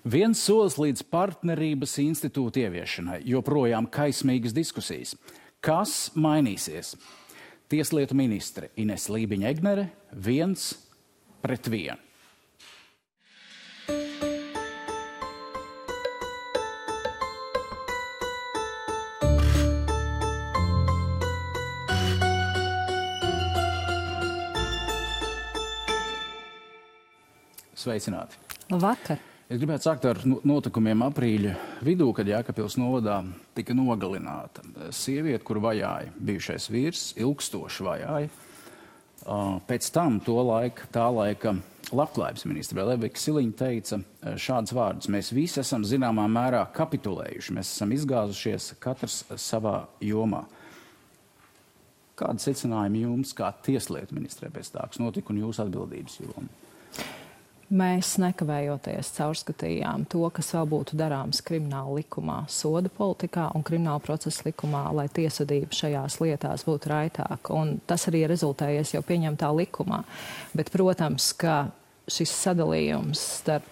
Viens solis līdz partnerības institūta ieviešanai, joprojām kaismīgas diskusijas. Kas mainīsies? Tieslietu ministre Ines Lībiņa-Egnere 1-1. Sveicināti! Labvakar! Es gribētu sākt ar notikumiem aprīļa vidū, kad Jēkabpils novadā tika nogalināta sieviete, kur vajāja bijušais vīrs, ilgstoši vajāja. Pēc tam tā laika labklājības ministre Levika Siliņa teica šādus vārdus: mēs visi esam zināmā mērā kapitulējuši, mēs esam izgāzušies katrs savā jomā. Kāda secinājuma jums kā tieslietu ministrē pēc tā, kas notika un jūsu atbildības joma? Mēs nekavējoties caurskatījām to, kas vēl būtu darāms krimināla likumā, soda politikā un krimināla procesa likumā, lai tiesvedība šajās lietās būtu raitāka. Un tas arī rezultējies jau pieņemtā likumā. Bet, protams, ka šis sadalījums starp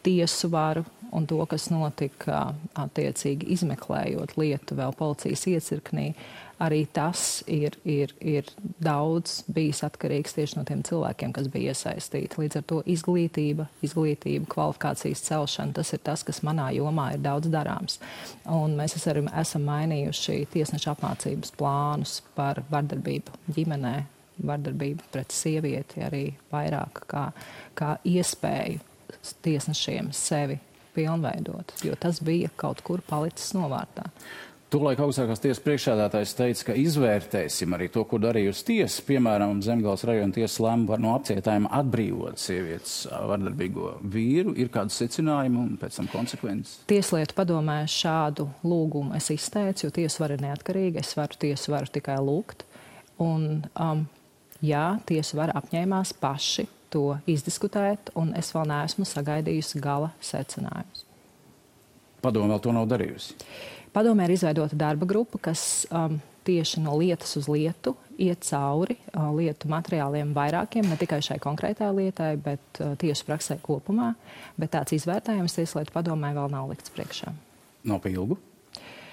tiesu varu un to, kas notika attiecīgi izmeklējot lietu vēl policijas iecirknī, arī tas ir daudz bijis atkarīgs tieši no tiem cilvēkiem, kas bija iesaistīti. Līdz ar to izglītība, kvalifikācijas celšana, tas ir tas, kas manā jomā ir daudz darāms. Un mēs arī esam mainījuši tiesneša apmācības plānus par vardarbību ģimenē, vardarbību pret sievieti, arī vairāk kā iespēju tiesnešiem sevi pilnveidot, jo tas bija kaut kur palicis novārtā. Tolaik augstākās tiesas priekšsēdētājs teica, ka izvērtēsim arī to, ko darījusi tiesa. Piemēram, Zemgales rajona tiesa lēma no apcietājuma atbrīvot sievietes vardarbīgo vīru. Ir kādi secinājumi un pēc tam konsekvences? Tieslietu padomē šādu lūgumu es izteicu, jo tiesa vara ir neatkarīga. Es varu tiesu varu tikai lūgt. Un, jā, tiesu vara apņēmās paši to izdiskutēt, un es vēl neesmu sagaidījusi gala secinājumus. Padome vēl to nav darījusi? Padomē ir izveidota darba grupa, kas tieši no lietas uz lietu iet cauri lietu materiāliem vairākiem, ne tikai šai konkrētā lietai, bet tiesu praksē kopumā. Bet tāds izvērtējums Tieslietu padomē vēl nav likts priekšā. Nav pa ilgu?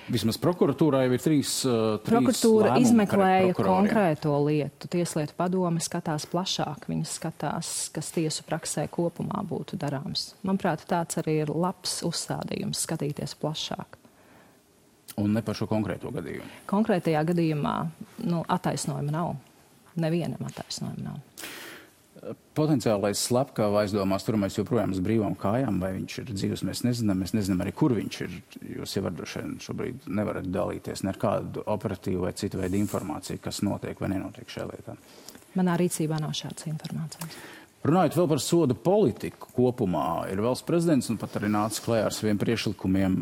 Vismaz prokuratūrā jau ir trīs Prokuratūra lēmumi izmeklēja konkrēto lietu. Tieslietu padome skatās plašāk. Viņi skatās, kas tiesu praksē kopumā būtu darāms. Manuprāt, tāds arī ir labs uzstādījums, skatīties plašāk. Un ne par šo konkrēto gadījumu? Konkrētajā gadījumā attaisnojuma nav. Nevienam attaisnojuma nav. Potenciālais slepkava aizdomās turamais joprojām uz brīvām kājām, vai viņš ir dzīvs, mēs nezinām arī, kur viņš ir. Jūs jau droši vien šobrīd nevarat dalīties ne ar kādu operatīvu vai citu veidu informāciju, kas notiek vai nenotiek šajā lietā. Manā rīcībā nav šādas informācijas. Runājot vēl par soda politiku kopumā, ir valsts prezidents un pat arī nācis klajā ar saviem priekšlikumiem,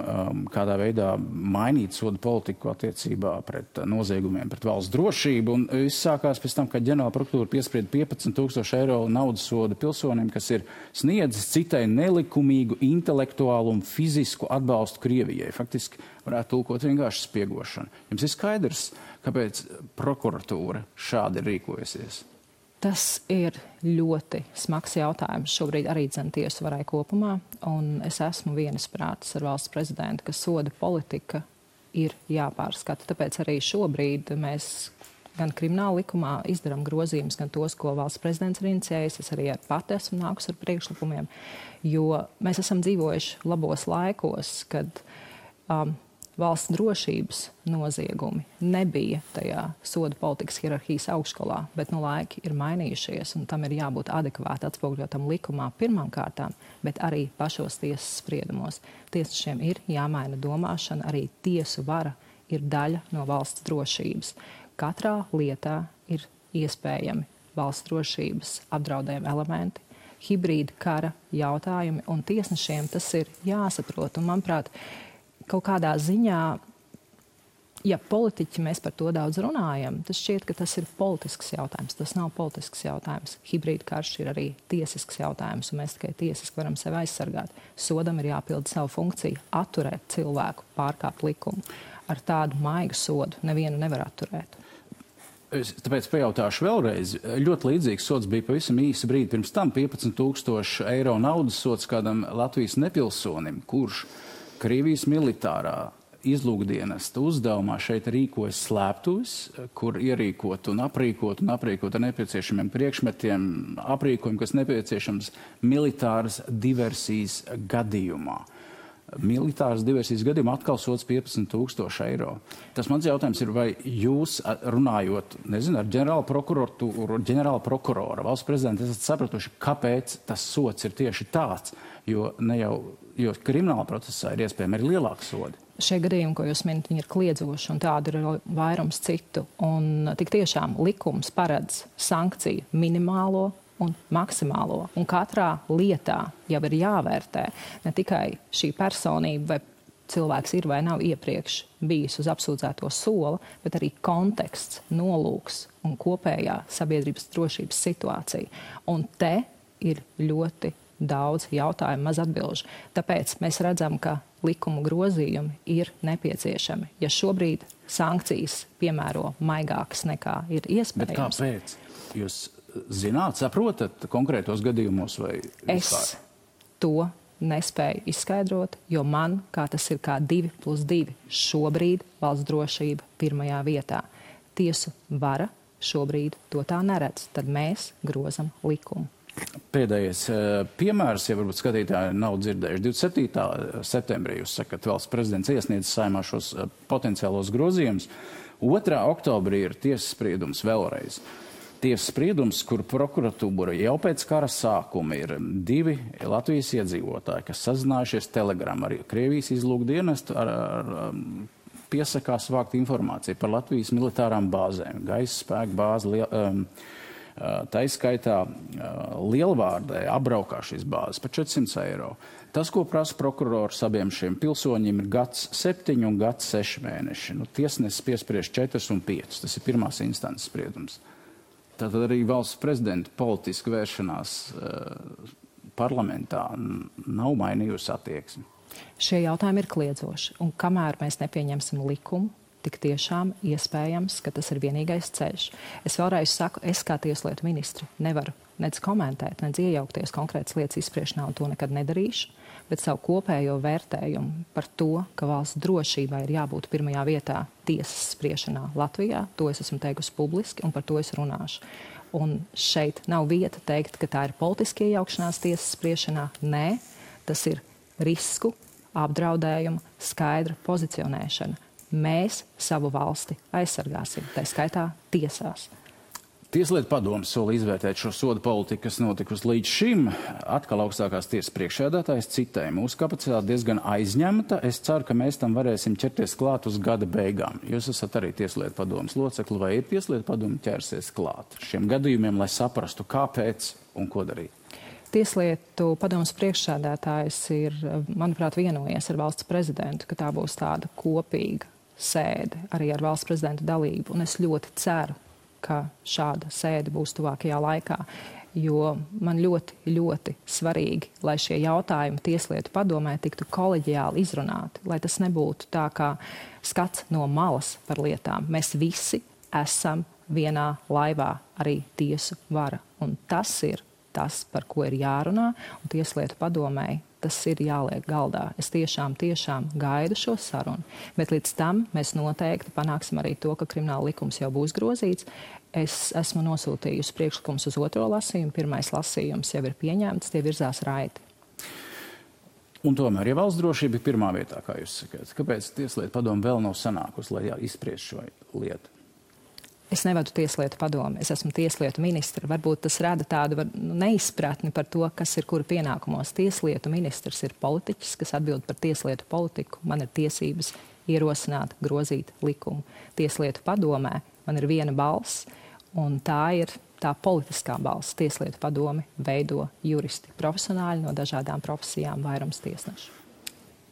kādā veidā mainīt soda politiku attiecībā pret noziegumiem, pret valsts drošību. Un viss sākās pēc tam, kad ģenerāla prokuratūra piesprieda 15,000 eiro naudas soda pilsonim, kas ir sniedzis citai nelikumīgu intelektuālu un fizisku atbalstu Krievijai. Faktiski varētu tulkot vienkārši spiegošanu. Jums ir skaidrs, kāpēc prokuratūra šādi ir rīkojusies? Tas ir ļoti smags jautājums šobrīd arī tiesu varai kopumā, un es esmu vienisprātis ar valsts prezidentu, ka soda politika ir jāpārskata. Tāpēc arī šobrīd mēs gan krimināla likumā izdarām grozījumus, gan tos, ko valsts prezidents ir inicijējis. Es arī pati esmu nākus ar priekšlikumiem, jo mēs esam dzīvojuši labos laikos, kad valsts drošības noziegumi nebija tajā soda politikas hierarhijas augšgalā, bet laiki ir mainījušies, un tam ir jābūt adekvāti atspoguļotam likumā pirmām kārtām, bet arī pašos tiesas spriedumos. Tiesnešiem ir jāmaina domāšana, arī tiesu vara ir daļa no valsts drošības. Katrā lietā ir iespējami valsts drošības apdraudējumi elementi, hibrīda kara jautājumi, un tiesnešiem tas ir jāsaprot. Un, manuprāt, kaut kādā ziņā, ja politiķi mēs par to daudz runājam, tas šķiet, ka tas ir politisks jautājums. Tas nav politisks jautājums. Hibrīda karš ir arī tiesisks jautājums, un mēs tikai tiesiski varam sevi aizsargāt. Sodam ir jāpilda savu funkciju, atturēt cilvēku, pārkāpt likumu. Ar tādu maigu sodu nevienu nevar atturēt. Tāpēc pajautāšu vēlreiz. Ļoti līdzīgs sods bija pavisam īsa brīdi pirms tam 15,000 eiro naudas sods kādam Latvijas nepilsonim, kurš Krievijas militārā izlūkdienesta uzdevumā šeit rīkojas slēptuves, kur ierīkot un aprīkot ar nepieciešamiem priekšmetiem, aprīkojumu, kas nepieciešams militāras diversijas gadījumā. Militāras diversijas gadījumā atkal sods 15,000 eiro. Tas mans jautājums ir, vai jūs runājot, nezinu, ar ģenerāla prokurora, valsts prezidenta, esat sapratuši, kāpēc tas sods ir tieši tāds, jo krimināla procesā ir iespējami arī lielāki sodi. Šie gadījumi, ko jūs minat, viņi ir kliedzoši, un tādu ir vairums citu. Un tik tiešām likums paredz sankciju minimālo un maksimālo. Un katrā lietā jau ir jāvērtē ne tikai šī personība, vai cilvēks ir vai nav iepriekš bijis uz apsūdzēto sola, bet arī konteksts, nolūks un kopējā sabiedrības drošības situācija. Un te ir ļoti daudz jautājumu, maz atbilžu. Tāpēc mēs redzam, ka likuma grozījumi ir nepieciešami. Ja šobrīd sankcijas piemēro maigākas nekā ir iespējams. Bet kāpēc? Jūs zināt, saprotat konkrētos gadījumos vai vispār? Es to nespēju izskaidrot, jo man, kā tas ir kā 2+2, šobrīd valsts drošība pirmajā vietā. Tiesu vara šobrīd to tā neredz, tad mēs grozam likumu. Pēdējais piemērs, ja varbūt skatītāji nav dzirdējuši, 27. septembrī jūs sakat, valsts prezidents iesniedz Saeimā šos potenciālos grozījumus. 2. oktobrī ir tiesas spriedums vēlreiz. Tiesas spriedums, kur prokuratūra jau pēc kara sākuma ir 2 Latvijas iedzīvotāji, kas sazinājušies Telegram ar Krievijas izlūkdienestu, ar piesakās vākt informāciju par Latvijas militārām bāzēm, gaisa spēku bāzi, taiskaitā Lielvārdē apbraukā šīs bāzes par 400 eiro. Tas, ko prasa prokurors abiem šiem pilsoņiem, ir gads 7 un gads 6 mēneši. Tiesnesis piespriež 4 un 5. Tas ir pirmās instances spriedums. Tātad arī valsts prezidenta politiska vēršanās parlamentā nav mainījusi attieksmi. Šie jautājumi ir kliedzoši, un kamēr mēs nepieņemsim likumu, tik tiešām iespējams, ka tas ir vienīgais ceļš. Es vēlreiz saku, es kā tieslietu ministri nevaru nec komentēt, nec iejaukties konkrētas lietas izspriešanā, un to nekad nedarīšu, bet savu kopējo vērtējumu par to, ka valsts drošībai ir jābūt pirmajā vietā tiesas spriešanā Latvijā, to es esmu teikusi publiski, un par to es runāšu. Un šeit nav vieta teikt, ka tā ir politiska iejaukšanās tiesas spriešanā. Nē, tas ir risku, apdraudējumu, skaidra pozicionēšana. Mēs savu valsti aizsargāsim, tā skaitā tiesās. Tieslietu padomes sola izvērtēt šo sodu politiku, kas notikusi līdz šim. Atkal augstākās tiesas priekšsēdētājs citēja: mūsu kapacitāte diezgan aizņemta. Es ceru, ka mēs tam varēsim ķerties klāt uz gada beigām. Jūs esat arī Tieslietu padomes locekli, vai ir Tieslietu padome ķersies klāt šiem gadījumiem, lai saprastu, kāpēc un ko darīt? Tieslietu padomes priekšsēdētājs ir, manuprāt, vienojies ar valsts prezidentu, ka tā būs tāda kopīga sēde arī ar valsts prezidenta dalību. Un es ļoti ceru, ka šāda sēde būs tuvākajā laikā, jo man ļoti, ļoti svarīgi, lai šie jautājumi Tieslietu padomē tiktu koleģiāli izrunāti, lai tas nebūtu tā kā skats no malas par lietām. Mēs visi esam vienā laivā, arī tiesu vara. Un tas ir tas, par ko ir jārunā, un Tieslietu padomēji tas ir jāliek galdā. Es tiešām gaidu šo sarunu, bet līdz tam mēs noteikti panāksim arī to, ka krimināla likums jau būs grozīts. Es esmu nosūtījusi priekšlikumus uz 2. lasījumu, 1. lasījums jau ir pieņemts, tie virzās raiti. Un tomēr, ja valsts drošība ir pirmā vietā, kā jūs sakāt, kāpēc Tieslietu padome vēl nav sanākusi, lai izspriež šo lietu? Es nevadu Tieslietu padomi, es esmu tieslietu ministra. Varbūt tas rada tādu neizpratni par to, kas ir kura pienākumos. Tieslietu ministrs ir politiķis, kas atbild par tieslietu politiku. Man ir tiesības ierosināt, grozīt likumu. Tieslietu padomē man ir viena balss, un tā ir tā politiskā balss. Tieslietu padomi veido juristi, profesionāļi no dažādām profesijām, vairums tiesnešu.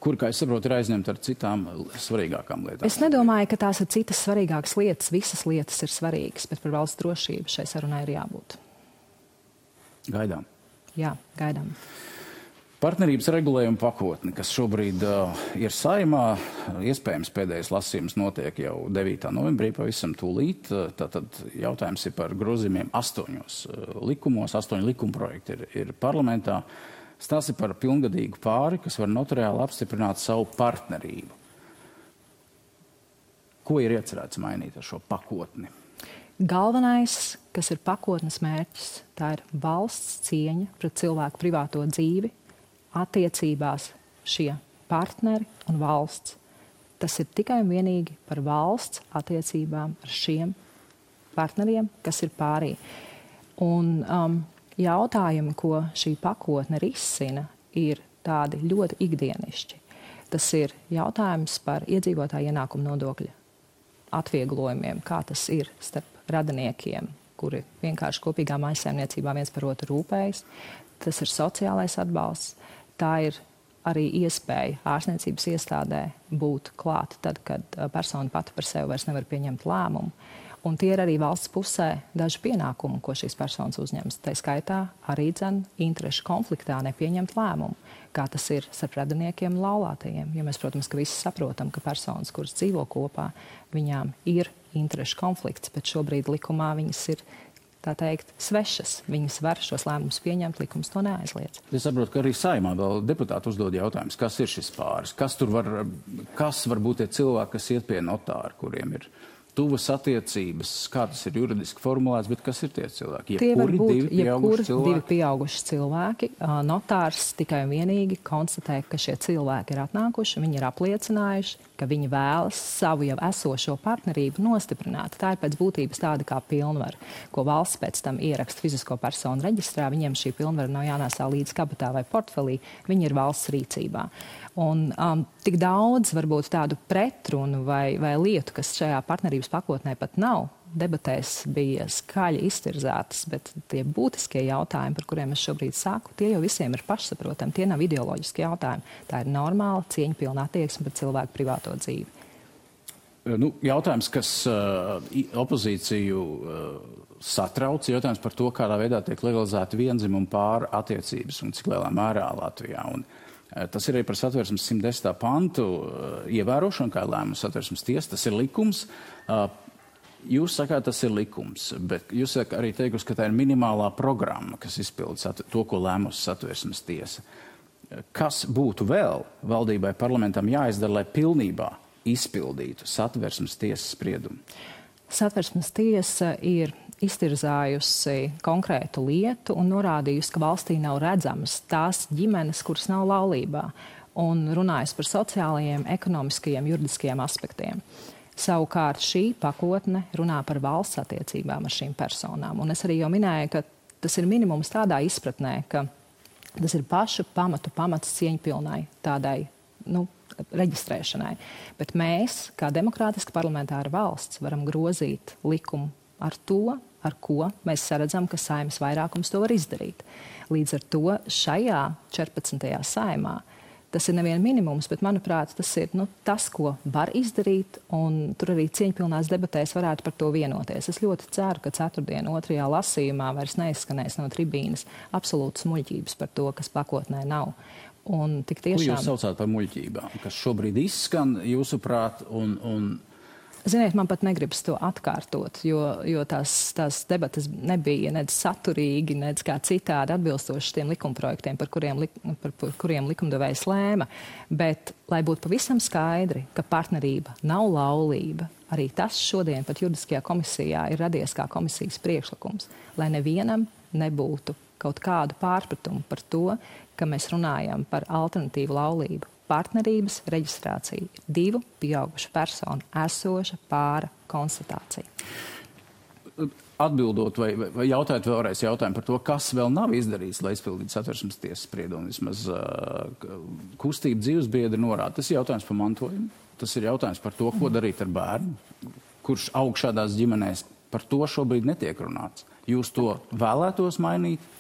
Kur, kā es saprotu, ir aizņemta ar citām svarīgākām lietām? Es nedomāju, ka tās ir citas svarīgākas lietas. Visas lietas ir svarīgas, bet par valsts drošību šai sarunai ir jābūt. Gaidām. Jā, gaidām. Partnerības regulējuma pakotne, kas šobrīd ir Saeimā, iespējams pēdējais lasījums notiek jau 9. novembrī, pavisam tūlīt. Tātad jautājums ir par grozījumiem 8 likumos, 8 likumprojekti ir parlamentā. Stāsti par pilngadīgu pāri, kas var notariāli apstiprināt savu partnerību. Ko ir iecerēts mainīt ar šo pakotni? Galvenais, kas ir pakotnes mērķis, tā ir valsts cieņa pret cilvēku privāto dzīvi, attiecībās šie partneri un valsts. Tas ir tikai un vienīgi par valsts attiecībām ar šiem partneriem, kas ir pārī. Un jautājumi, ko šī pakotne risina, ir tādi ļoti ikdienišķi. Tas ir jautājums par iedzīvotāju ienākumu nodokļa atvieglojumiem, kā tas ir starp radiniekiem, kuri vienkārši kopīgā mājsaimniecībā viens par otru rūpējas. Tas ir sociālais atbalsts. Tā ir arī iespēja ārstniecības iestādē būt klāt tad, kad persona pati par sevi vairs nevar pieņemt lēmumu. Un tie ir arī valsts pusē daži pienākumi, ko šīs personas uzņems. Tā skaitā arī interešu konfliktā nepieņemt lēmumu, kā tas ir starp radiniekiem un laulātajiem. Jo mēs, protams, ka visi saprotam, ka personas, kuras dzīvo kopā, viņām ir interešu konflikts, bet šobrīd likumā viņas ir, tā teikt, svešas. Viņas var šos lēmumus pieņemt, likums to neaizliedz. Es saprotu, ka arī Saeimā vēl deputāti uzdod jautājumus, kas ir šis pāris, kas var būt tie cilvēki, kas iet pie notāra, kuriem ir tuvas attiecības, kā tas ir juridiski formulēts, bet kas ir tie cilvēki? Tie var būt divi pieauguši cilvēki. Notārs tikai un vienīgi konstatē, ka šie cilvēki ir atnākuši, viņi ir apliecinājuši, ka viņi vēlas savu jau esošo partnerību nostiprināt. Tā ir pēc būtības tāda kā pilnvara, ko valsts pēc tam ieraksta fizisko personu reģistrā. Viņiem šī pilnvara nav jānēsā līdz kabatā vai portfelī, viņi ir valsts rīcībā. Un tik daudz varbūt tādu pretrunu vai lietu, kas šajā partnerības pakotnē pat nav, debatēs bija skaļi iztirzētas, bet tie būtiskie jautājumi, par kuriem es šobrīd saku, tie jau visiem ir pašsaprotami, tie nav ideoloģiski jautājumi. Tā ir normāla, cieņpilna attieksme pret cilvēku privāto dzīvi. Jautājums, kas opozīciju satrauc, jautājums par to, kādā veidā tiek legalizēta viendzimumu pāru attiecības un cik lielā mērā Latvijā. Un tas ir arī par Satversmes 110. pantu ievērošanu, kā lēmums Satversmes tiesa, tas ir likums. Jūs sakāt, tas ir likums, bet jūs arī teikusi, ka tā ir minimālā programma, kas izpilda to, ko lēmusi Satversmes tiesa. Kas būtu vēl valdībai, parlamentam jāizdara, lai pilnībā izpildītu Satversmes tiesas spriedumu? Satversmes tiesa ir iztirzājusi konkrētu lietu un norādījusi, ka valstī nav redzamas tās ģimenes, kuras nav laulībā, un runājusi par sociālajiem, ekonomiskajiem, juridiskajiem aspektiem. Savukārt šī pakotne runā par valsts attiecībām ar šīm personām. Un es arī jau minēju, ka tas ir minimums tādā izpratnē, ka tas ir pašu pamats cieņpilnai tādai, reģistrēšanai. Bet mēs, kā demokrātiska parlamentāra valsts, varam grozīt likumu ar to, ar ko mēs saredzam, ka Saeimas vairākums to var izdarīt. Līdz ar to šajā 14. Saeimā tas ir nevien minimums, bet, manuprāt, tas ir tas, ko var izdarīt, un tur arī cieņpilnās debatēs varētu par to vienoties. Es ļoti ceru, ka ceturtdien 2. lasījumā vairs neizskanēs no tribīnes absolūtas muļķības par to, kas pakotnē nav. Un tik tiešām... Ko jūs saucāt par muļķībām, kas šobrīd izskan, jūsuprāt, un... Ziniet, man pat negribas to atkārtot, jo tās debatas nebija nec saturīgi, nec kā citādi atbilstoši tiem likumprojektiem, par kuriem likumdevējs lēma. Bet, lai būtu pavisam skaidri, ka partnerība nav laulība, arī tas šodien pat juridiskajā komisijā ir radies kā komisijas priekšlikums, lai nevienam nebūtu kaut kādu pārpratumu par to, ka mēs runājam par alternatīvu laulību. Partnerības reģistrācija ir divu pieaugušu personu esoša pāra konstatācija. Atbildot vai jautājot vēlreiz jautājumu par to, kas vēl nav izdarīts, lai izpildītu Satversmes tiesas spriedumu, vismaz kustība dzīvesbiedri norāda. Tas ir jautājums par mantojumu, tas ir jautājums par to, ko darīt ar bērnu, kurš aug šādās ģimenēs. Par to šobrīd netiek runāts. Jūs to vēlētos mainīt?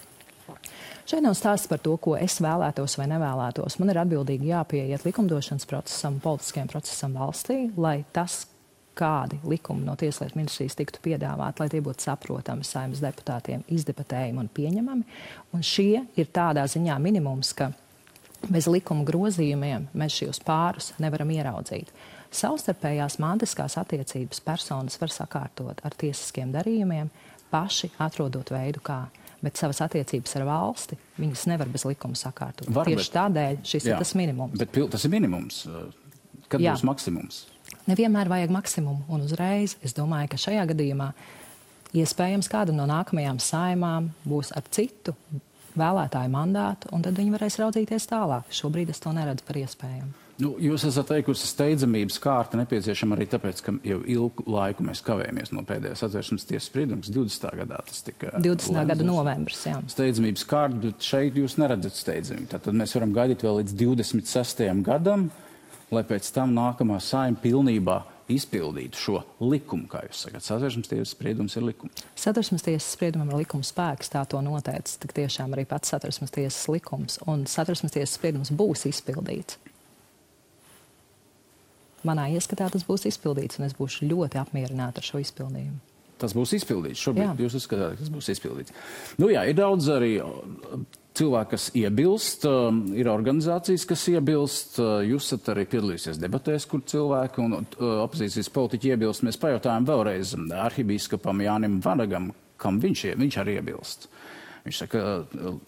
Šeit nav stāsts par to, ko es vēlētos vai nevēlētos. Man ir atbildīgi jāpieiet likumdošanas procesam, politiskajam procesam valstī, lai tas, kādi likumi no Tieslietu ministrijas tiktu piedāvāti, lai tie būtu saprotami Saeimas deputātiem, izdebatējami un pieņemami. Un šie ir tādā ziņā minimums, ka Bez likuma grozījumiem mēs šos pārus nevaram ieraudzīt. Savstarpējās mantiskās attiecības personas var sakārtot ar tiesiskiem darījumiem, paši atrodot veidu kā. Bet savas attiecības ar valsti viņas nevar bez likuma sakārtot. Tieši tādēļ šis ir tas minimums. Bet tas ir minimums. Kad būs maksimums? Nevienmēr vajag maksimumu un uzreiz. Es domāju, ka šajā gadījumā iespējams kāda no nākamajām saimām būs ar citu vēlētāju mandātu, un tad viņi varēs raudzīties tālāk. Šobrīd es to neredzu par iespējamu. Jūs esat teikusi, steidzamības kārta nepieciešama arī tāpēc, ka jau ilgu laiku mēs kavējamies no pēdējās Satversmes tiesas spriedums. 20. gadā tas tika 20. gada novembris, jā. Steidzamības kārta, bet šeit jūs neredzat steidzamību. Tātad mēs varam gaidīt vēl līdz 26. gadam, lai pēc tam nākamā saima pilnībā izpildītu šo likumu, kā jūs sakat. Satversmes tiesas spriedums ir likums. Satversmes tiesas spriedumam ir likuma spēks, tā to noteica tik tiešām arī pats Satversmes tiesas likums, un Satversmes tiesas spriedums būs izpildīts. Manā ieskatā tas būs izpildīts, un es būšu ļoti apmierināta ar šo izpildījumu. Tas būs izpildīts. Šobrīd jūs uzskatāt, ka tas būs izpildīts. Ir daudz arī cilvēki, kas iebilst, ir organizācijas, kas iebilst. Jūs esat arī piedalījusies debatēs, kur cilvēki un opozīcijas politiķi iebilst. Mēs pajautājām vēlreiz arhibīskapam Jānim Vanagam, kam viņš arī iebilst. Viņš saka,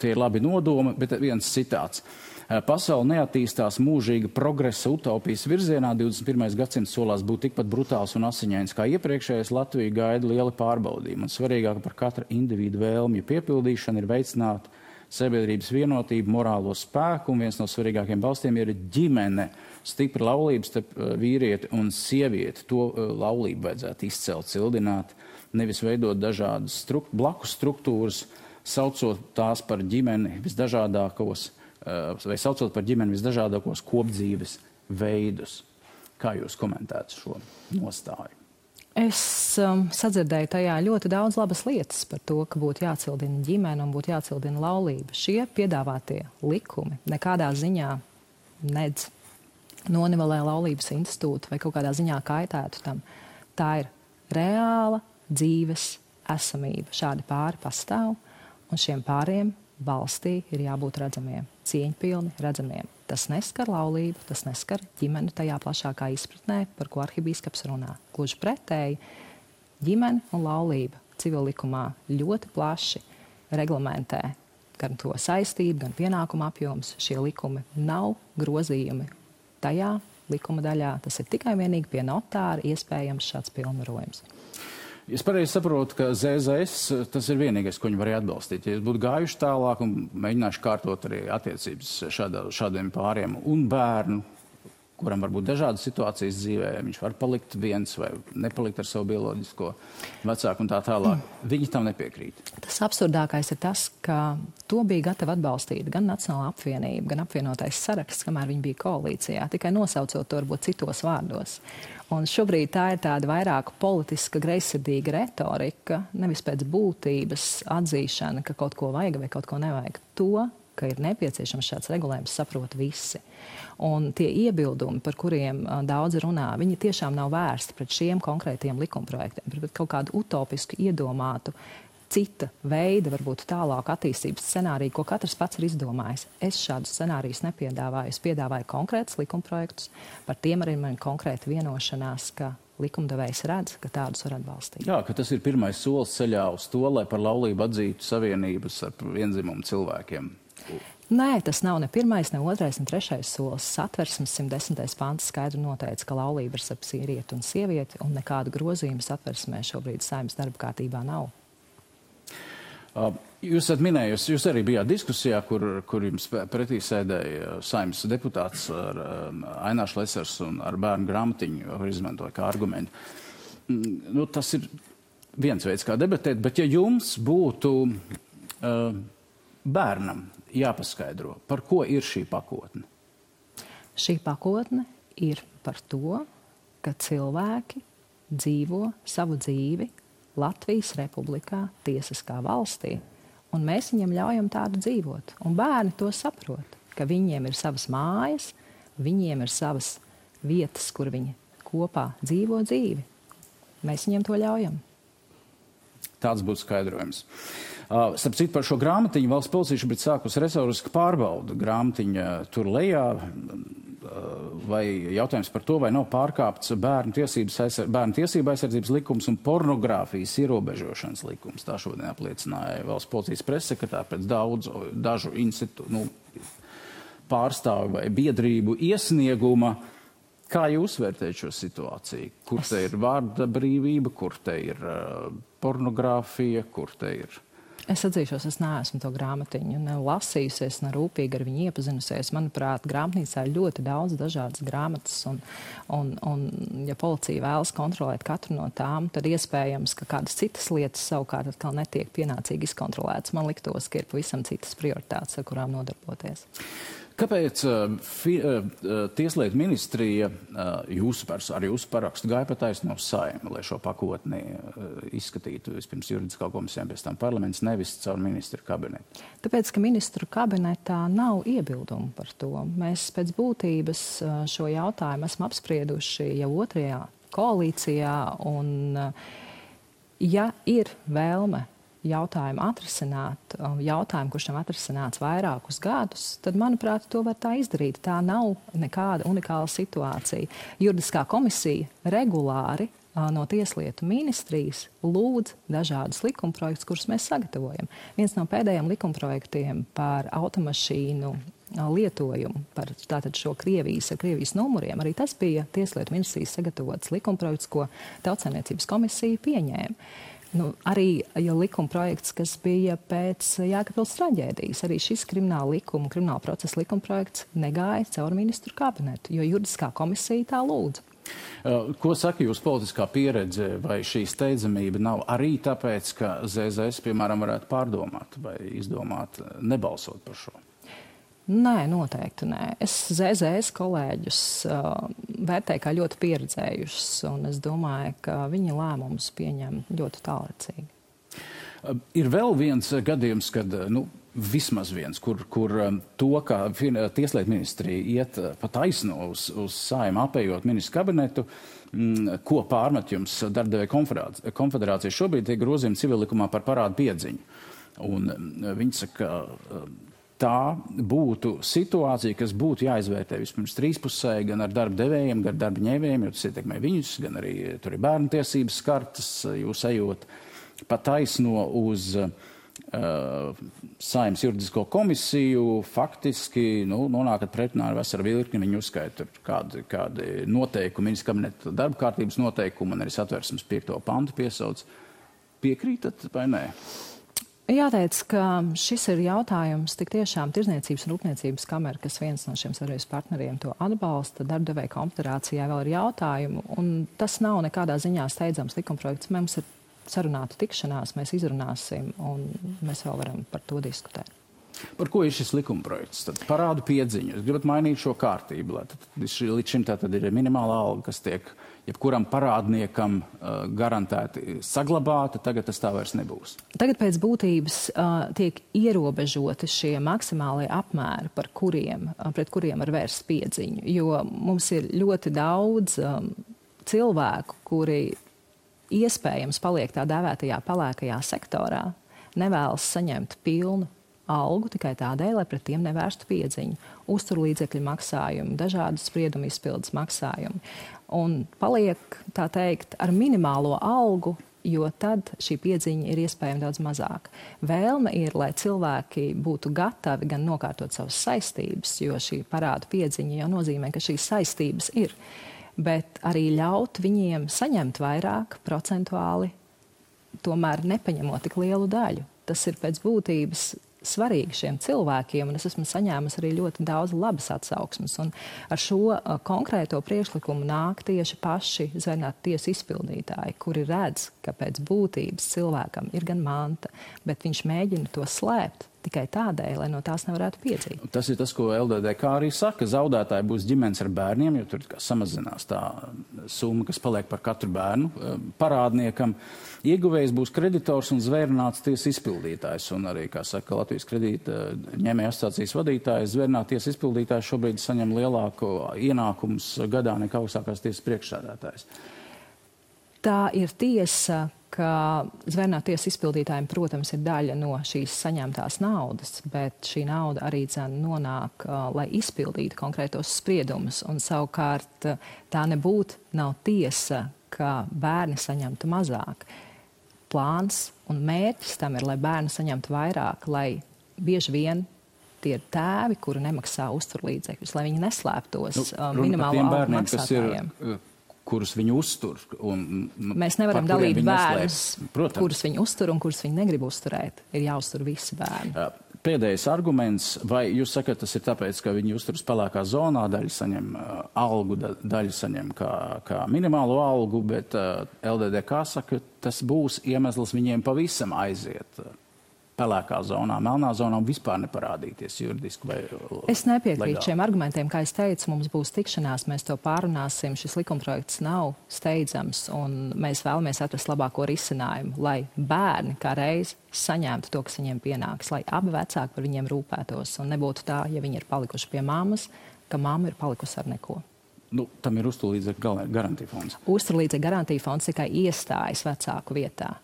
tie ir labi nodomi, bet viens citāts. Pasaule neattīstās mūžīga progresa utopijas virzienā. 21. gadsimts solās būt tikpat brutāls un asiņains kā iepriekšējais. Latviju gaida lieli pārbaudījumi. Un svarīgāk par katra individu vēlmju piepildīšanu ir veicināt sabiedrības vienotību, morālo spēku. Un viens no svarīgākiem balstiem ir ģimene. Stipra laulības starp vīrieti un sievieti. To laulību vajadzētu izcelt, cildināt, nevis veidot dažādas blakus struktūras, saucot tās par ģimeni visdažādākos kopdzīves veidus. Kā jūs komentētu šo nostāju? Es sadzirdēju tajā ļoti daudz labas lietas par to, ka būtu jācildina ģimene un būtu jācildina laulība. Šie piedāvātie likumi nekādā ziņā nedz nonivelē laulības institūtu vai kaut kādā ziņā kaitētu tam. Tā ir reāla dzīves esamība. Šādi pāri pastāv, un šiem pāriem valstī ir jābūt redzamiem, cieņpilni redzamiem. Tas neskar laulību, tas neskar ģimeni tajā plašākā izpratnē, par ko arhibīskaps runā. Gluži pretēji, ģimene un laulība civillikumā ļoti plaši reglamentē gan to saistību, gan pienākumu apjoms. Šie likumi nav grozījumi tajā likuma daļā. Tas ir tikai vienīgi pie notāra iespējams šāds pilnvarojums. Es pareizi saprotu, ka ZZS tas ir vienīgais, ko viņi varēja atbalstīt. Ja jūs būtu gājuši tālāk un mēģinājuši kārtot arī attiecības šādiem pāriem un bērnu, kuram var būt dažādas situācijas dzīvē, viņš var palikt viens vai nepalikt ar savu bioloģisko vecāku un tā tālāk. Viņi tam nepiekrīt. Tas absurdākais ir tas, ka to bija gatava atbalstīt gan Nacionālā apvienība, gan apvienotais saraksts, kamēr viņi bija koalīcijā, tikai nosaucot to varbūt citos vārdos. Un šobrīd tā ir tāda vairāk politiska, greizsirdīga retorika, nevis pēc būtības atzīšana, ka kaut ko vajag vai kaut ko nevajag. To, ka ir nepieciešams šāds regulējums, saprot visi. Un tie iebildumi, par kuriem daudz runā, viņi tiešām nav vērsti pret šiem konkrētiem likumprojektiem, bet kaut kādu utopisku iedomātu cita veida, varbūt tālāk attīstības scenāriju, ko katrs pats ir izdomājis. Es šādus scenārijus nepiedāvāju. Es piedāvāju konkrētus likumprojektus, par tiem arī man konkrēta vienošanās, ka likumdevējs redz, ka tādus var atbalstīt. Jā, ka tas ir pirmais solis ceļā uz to, lai par laulību atzītu savienības ar vienzimumu cilvēkiem. Nē, tas nav ne pirmais, ne otrais, ne trešais solis. Satversmes 110. pants skaidri noteica, ka laulība ir starp sievieti un sievieti, un nekādu grozījumu Satversmē šobrīd Saeimas darba kārtībā nav. Jūs esat minējusi, jūs arī bijāt diskusijā, kur jums pretī sēdēja Saeimas deputāts ar Ainārs Lesers un ar bērnu grāmatiņu, var izmantot kā argumentu. Tas ir viens veids, kā debatēt, bet ja jums būtu bērnam jāpaskaidro, par ko ir šī pakotne? Šī pakotne ir par to, ka cilvēki dzīvo savu dzīvi Latvijas Republikā, tiesiskā valstī, un mēs viņiem ļaujam tādu dzīvot. Un bērni to saprot, ka viņiem ir savas mājas, viņiem ir savas vietas, kur viņi kopā dzīvo dzīvi. Mēs viņiem to ļaujam. Tāds būtu skaidrojums. Starp citu, par šo grāmatiņu valsts policija šobrīd sākus resursku pārbaudu. Grāmatiņa tur lejā, vai jautājums par to, vai nav pārkāpts bērnu tiesību aizsardzības likums un pornogrāfijas ierobežošanas likums. Tā šodien apliecināja valsts policijas pressekretāri pēc dažu institūtu pārstāvu vai biedrību iesnieguma. Kā jūs vērtējat šo situāciju? Kur te ir vārda brīvība, kur te ir pornogrāfija, kur te ir... Es atzīšos, es neesmu to grāmatiņu ne lasījusies, ne rūpīgi ar viņu iepazinusies. Manuprāt, grāmatnīcā ir ļoti daudz dažādas grāmatas, un ja policija vēlas kontrolēt katru no tām, tad iespējams, ka kādas citas lietas savukārt atkal netiek pienācīgi izkontrolētas. Man liktos, ka ir pavisam citas prioritātes, ar kurām nodarboties. Kāpēc Tieslietu ministrija ar jūsu parakstu gāja pa taisno Saeimu, lai šo pakotni izskatītu vispirms juridiskā komisijā, pēc tam parlaments, nevis caur ministru kabinetu? Tāpēc, ka ministru kabinetā nav iebildumu par to. Mēs pēc būtības šo jautājumu esam apsprieduši jau 2. koalīcijā, un ja ir vēlme jautājumu atrisināt, kurš nav atrisināts vairākus gadus, tad, manuprāt, to var tā izdarīt. Tā nav nekāda unikāla situācija. Juridiskā komisija regulāri no Tieslietu ministrijas lūdz dažādus likumprojektus, kurus mēs sagatavojam. Viens no pēdējiem likumprojektiem par automašīnu lietojumu, par tātad šo Krievijas numuriem, arī tas bija Tieslietu ministrijas sagatavots likumprojekts, ko Tautsaimniecības komisija pieņēma. Arī likuma projekts, kas bija pēc Jēkabpils traģēdijas, arī šis krimināla procesa likuma projekts negāja caur ministru kabinetu, jo juridiskā komisija tā lūdza. Ko saka jūs politiskā pieredze, vai šī steidzamība nav arī tāpēc, ka ZZS, piemēram, varētu pārdomāt vai izdomāt nebalsot par šo? Nē, noteikti nē. Es ZZS kolēģus vērtēju kā ļoti pieredzējušus, un es domāju, ka viņi lēmumus pieņem ļoti tālrecīgi. Ir vēl viens gadījums, kad, vismaz viens, kur to, kā Tieslietu ministrija iet pa taisno uz Saeimu, apējot ministru kabinetu, ko pārmet jums Darbadevēju konfederācija šobrīd tiek grozījumi civillikumā par parādu piedziņu. Un viņi saka, tā būtu situācija, kas būtu jāizvērtē vispirms trīspusēji, gan ar darba devējiem, gan ar darba ņēmējiem, jo tas ietekmē viņus, gan arī tur ir bērnu tiesības skartas, jūs ejot pa taisno uz Saeimas juridisko komisiju, faktiski nonākat pretrunā ar veselu virkni, viņi uzskaita kādi noteikumi, ministra kabineta darba kārtības noteikumi, un arī Satversmes 5. pantu piesauc. Piekrītat vai nē? Jāteic, ka šis ir jautājums tik tiešām Tirdzniecības un Rūpniecības kamera, kas viens no šiem sadarbības partneriem to atbalsta. Darbadevēju konfederācijā vēl ir jautājumu, un tas nav nekādā ziņā steidzams likumprojekts. Mums ir sarunāta tikšanās, mēs izrunāsim, un mēs vēl varam par to diskutēt. Par ko ir šis likumprojekts? Tad parādu piedziņu. Jūs gribat mainīt šo kārtību, lai līdz šim tātad ir minimāla alga, kas tiek jebkuram parādniekam garantēti saglabāta, tagad tas tā vairs nebūs. Tagad pēc būtības tiek ierobežoti šie maksimālie apmēri, pret kuriem var vērst piedziņu, jo mums ir ļoti daudz cilvēku, kuri iespējams paliek tā dēvētajā pelēkajā sektorā, nevēlas saņemt pilnu algu tikai tādēļ, lai pret tiem nevērstu piedziņu, uzturlīdzekļu maksājumu, dažādu spriedumu izpildes maksājumu. Un paliek, tā teikt, ar minimālo algu, jo tad šī piedziņa ir iespējama daudz mazāk. Vēlme ir, lai cilvēki būtu gatavi gan nokārtot savas saistības, jo šī parādu piedziņa jau nozīmē, ka šīs saistības ir, bet arī ļaut viņiem saņemt vairāk procentuāli, tomēr nepaņemot tik lielu daļu. Tas ir pēc būtības svarīgi šiem cilvēkiem, un es esmu saņēmusi arī ļoti daudz labas atsauksmes. Un ar šo konkrēto priekšlikumu nāk tieši paši zvērnātu tiesu izpildītāji, kuri redz, ka pēc būtības cilvēkam ir gan manta, bet viņš mēģina to slēpt tikai tādēļ, lai no tās nevarētu piedzīt. Tas ir tas, ko LDDK arī saka. Zaudētāji būs ģimenes ar bērniem, jo tur samazinās tā summa, kas paliek par katru bērnu parādniekam. Ieguvējs būs kreditors un zvērnāts tiesas izpildītājs. Un arī, kā saka Latvijas kredīta ņēmēju asociācijas vadītājs, zvērnāt tiesas izpildītājs šobrīd saņem lielāku ienākumus gadā nekā augstākās tiesas priekšsēdētājs. Tā ir tiesa ka zvērnātu tiesas izpildītājiem, protams, ir daļa no šīs saņemtās naudas, bet šī nauda arī nonāk, lai izpildītu konkrētos spriedumus. Un savukārt tā nav tiesa, ka bērni saņemtu mazāk. Plāns un mērķis tam ir, lai bērni saņemtu vairāk, lai bieži vien tie ir tēvi, kuri nemaksā uzturlīdzekļus, lai viņi neslēptos minimālo algu maksātājiem. Kurus viņi uztur. Mēs nevaram dalīt bērnus, kurus viņi uztur un kurus viņi negrib uzturēt. Ir jāuztur visi bērni. Pēdējais arguments, vai jūs sakat, tas ir tāpēc, ka viņi uzturas pelēkā zonā, daļa saņem algu, daļa saņem kā minimālo algu, bet LDDK saka, tas būs iemesls viņiem pavisam aiziet pelēkā zonā, melnā zonā un vispār neparādīties juridiski vai Es nepiekrītu legāli. Šiem argumentiem, kā es teicu, mums būs tikšanās, mēs to pārunāsim, šis likumprojekts nav steidzams un mēs vēlamies atrast labāko risinājumu, lai bērni kā reiz saņemtu to, kas viņiem pienāks, lai abi vecāki par viņiem rūpētos un nebūtu tā, ja viņi ir palikuši pie mammas, ka mamma ir palikusi ar neko. Tam ir uzturlīdzekļu garantija fonds. Uzturlīdzekļu garantija fonds tikai iestājas vecāku vietā.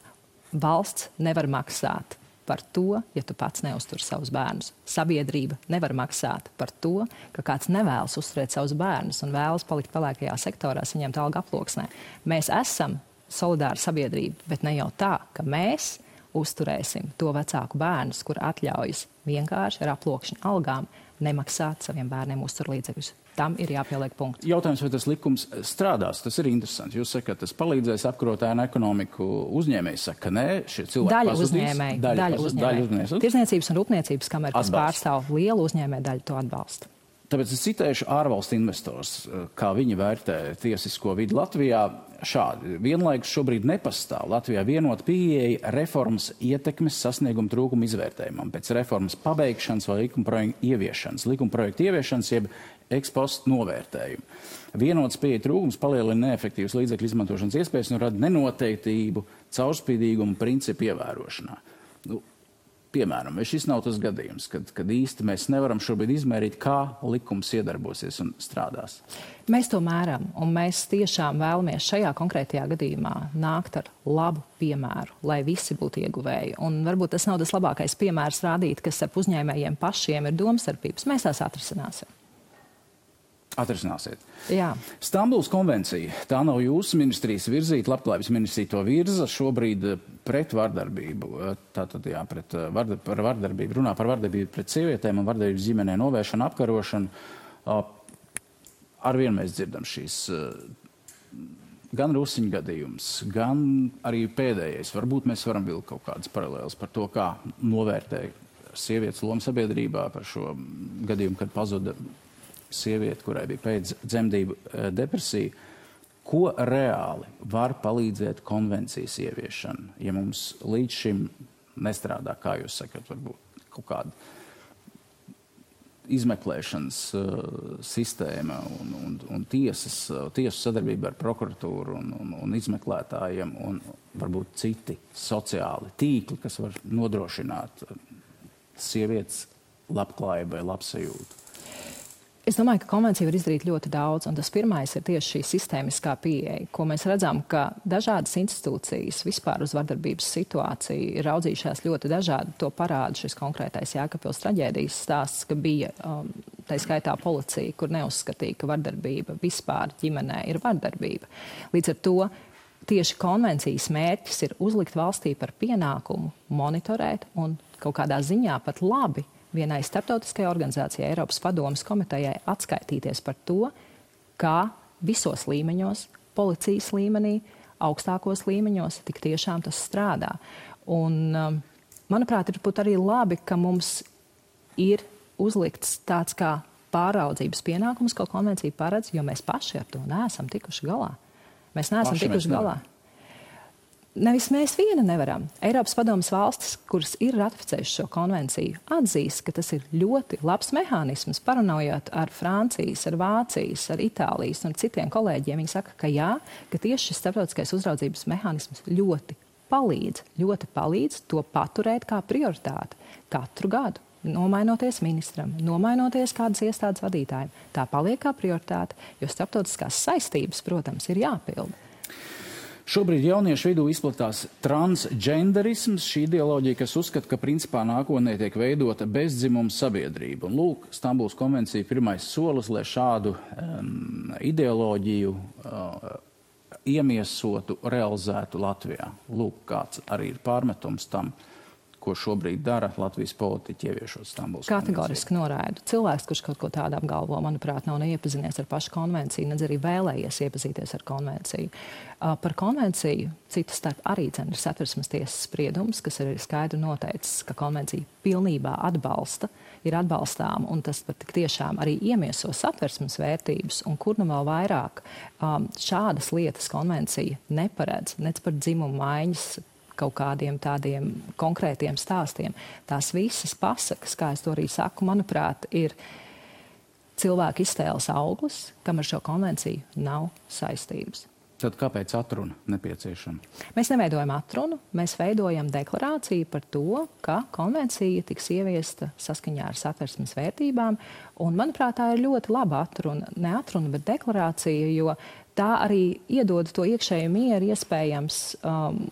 Valsts nevar maksāt par to, ja tu pats neuztur savus bērnus. Sabiedrība nevar maksāt par to, ka kāds nevēlas uzturēt savus bērnus un vēlas palikt pelēkajā sektorā, saņemt algu aploksnē. Mēs esam solidāra sabiedrība, bet ne jau tā, ka mēs uzturēsim to vecāku bērnus, kur atļaujas vienkārši ar aploksņu algām nemaksāt saviem bērniem uzturlīdzekļus. Tam ir jāpieliek punkts. Jautājums, vai tas likums strādās, tas ir interesants. Jūs sakat, tas palīdzēs apkarot ēnu ekonomiku. Uzņēmēji saka, ka nē, šie cilvēki pazudīs. Daļa uzņēmēji. Tirzniecības un rūpniecības kamera, kas pārstāv lielu uzņēmēju daļu, to atbalsta. Tāpēc es citēšu ārvalstu investors, kā viņi vērtē tiesisko vidi Latvijā. Šādi. Vienlaikus šobrīd nepastāv Latvijā vienota pieeja reformas ietekmes sasnieguma trūkuma izvērtējumam pēc reformas pabeigšanas vai likuma projekta ieviešanas, jeb ekspost novērtējumu. Vienots pieeja trūkums palielina neefektīvas līdzekļu izmantošanas iespējas un rada nenoteiktību, caurspīdīgumu principu ievērošanā. Piemēram, vai šis nav tas gadījums, kad īsti mēs nevaram šobrīd izmērīt, kā likums iedarbosies un strādās? Mēs to mēram, un mēs tiešām vēlamies šajā konkrētajā gadījumā nākt ar labu piemēru, lai visi būtu ieguvēji. Un varbūt tas nav tas labākais piemērs rādīt, kas ar uzņēmējiem pašiem ir domstarpības. Mēs tās atrisināsim. Atrisināsiet. Jā. Stambulas konvencija, tā nav jūsu ministrijas virzīta, Labklājības ministrija to virza šobrīd pret vardarbību. Tātad, jā, par vardarbību, runā par vardarbību pret sievietēm un vardarbības ģimenē novēršanu, apkarošanu. Arvien mēs dzirdam šīs gan Rusiņu gadījums, gan arī pēdējais. Varbūt mēs varam vilkt kaut kādas paralēlas par to, kā novērtē sievietes lomu sabiedrībā, par šo gadījumu, kad pazuda sieviete, kurai bija pēc dzemdību depresija. Ko reāli var palīdzēt konvencijas ieviešana, ja mums līdz šim nestrādā, kā jūs sakat, varbūt kaut kāda izmeklēšanas sistēma un tiesu sadarbība ar prokuratūru un izmeklētājiem un varbūt citi sociāli tīkli, kas var nodrošināt sievietes labklājību vai labsajūtu? Es domāju, ka konvencija var izdarīt ļoti daudz, un tas pirmais ir tieši šī sistēmiskā pieeja, ko mēs redzam, ka dažādas institūcijas vispār uz vardarbības situāciju ir raudzījušās ļoti dažādi. To parāda šis konkrētais Jēkabpils traģēdijas stāsts, ka bija tā skaitā policija, kur neuzskatīja, ka vardarbība vispār ģimenē ir vardarbība. Līdz ar to tieši konvencijas mērķis ir uzlikt valstī par pienākumu monitorēt un kaut kādā ziņā pat labi vienai starptautiskajai organizācijai, Eiropas padomes komitejai, atskaitīties par to, kā visos līmeņos, policijas līmenī, augstākos līmeņos, tik tiešām tas strādā. Un, manuprāt, ir būt arī labi, ka mums ir uzlikts tāds kā pāraudzības pienākums, ko konvencija paredz, jo mēs paši ar to neesam tikuši galā. Mēs neesam tikuši galā. Nevis mēs viena nevaram. Eiropas padomes valstis, kuras ir ratificējušas šo konvenciju, atzīst, ka tas ir ļoti labs mehānisms, parunājot ar Francijas, ar Vācijas, ar Itālijas un citiem kolēģiem. Viņi saka, ka jā, ka tieši šis starptautiskais uzraudzības mehānisms ļoti palīdz to paturēt kā prioritāti katru gadu. Nomainoties ministram, nomainoties kādas iestādes vadītājiem. Tā paliek kā prioritāte, jo starptautiskās saistības, protams, ir jāpilda. Šobrīd jauniešu vidū izplatās transgenderisms, šī ideoloģija, kas uzskata, ka principā nākotnē tiek veidota bezdzimuma sabiedrība. Un lūk, Stambulas konvencija pirmais solis, lai šādu ideoloģiju iemiesotu, realizētu Latvijā. Lūk, kāds arī ir pārmetums tam, ko šobrīd dara Latvijas politiķi ieviešot Stambulas konvenciju. Kategoriski noraidu. Cilvēks, kurš kaut ko tādu apgalvo, manuprāt, nav neiepazinies ar pašu konvenciju, nedz arī vēlējies iepazīties ar konvenciju. Par konvenciju citu starp arī ir Satversmes tiesas spriedums, kas ir skaidri noteicis, ka konvencija pilnībā ir atbalstām, un tas pat tik tiešām arī iemieso Satversmes vērtības, un kur nu vēl vairāk šādas lietas konvencija neparedz, nec par dzimumu maiņas kaut kādiem tādiem konkrētiem stāstiem. Tās visas pasakas, kā es to arī saku, manuprāt, ir cilvēku iztēles auglis, kam ar šo konvenciju nav saistības. Tad kāpēc atruna nepieciešama? Mēs neveidojam atrunu, mēs veidojam deklarāciju par to, ka konvencija tiks ieviesta saskaņā ar Satversmes vērtībām, un, manuprāt, tā ir ļoti laba atruna, ne atruna, bet deklarācija, jo tā arī iedod to iekšēju mieru iespējams,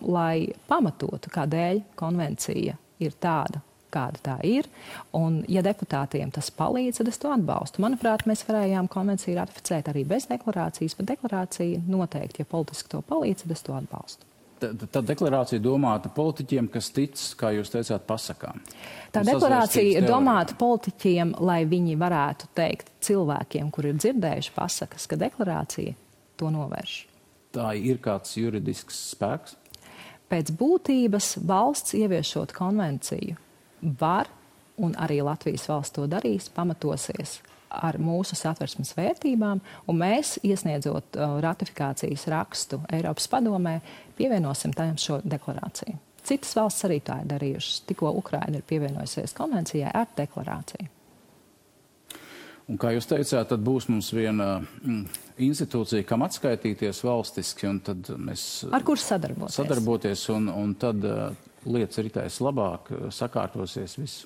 lai pamatotu, kādēļ konvencija ir tāda, kāda tā ir. Un, ja deputātiem tas palīdz, tad es to atbalstu. Manuprāt, mēs varējām konvenciju ratificēt arī bez deklarācijas, bet deklarācija noteikti, ja politiski to palīdz, tad es to atbalstu. Tā deklarācija domāta politiķiem, kas tic, kā jūs teicāt, pasakām. Tā deklarācija ir domāta politiķiem, lai viņi varētu teikt cilvēkiem, kuri ir dzirdējuši pasakas, ka deklarācija to novērš. Tā ir kāds juridisks spēks? Pēc būtības valsts ieviešot konvenciju var, un arī Latvijas valsts to darīs, pamatosies ar mūsu Satversmes vērtībām, un mēs, iesniedzot ratifikācijas rakstu Eiropas padomē, pievienosim tam šo deklarāciju. Citas valsts arī tā ir darījušas. Tikko Ukraina ir pievienojusies konvencijai ar deklarāciju. Un, kā jūs teicāt, tad būs mums viena institūcija, kam atskaitīties valstiski, un tad mēs... Ar kur sadarboties, un tad lietas ritēs labāk, sakārtosies viss.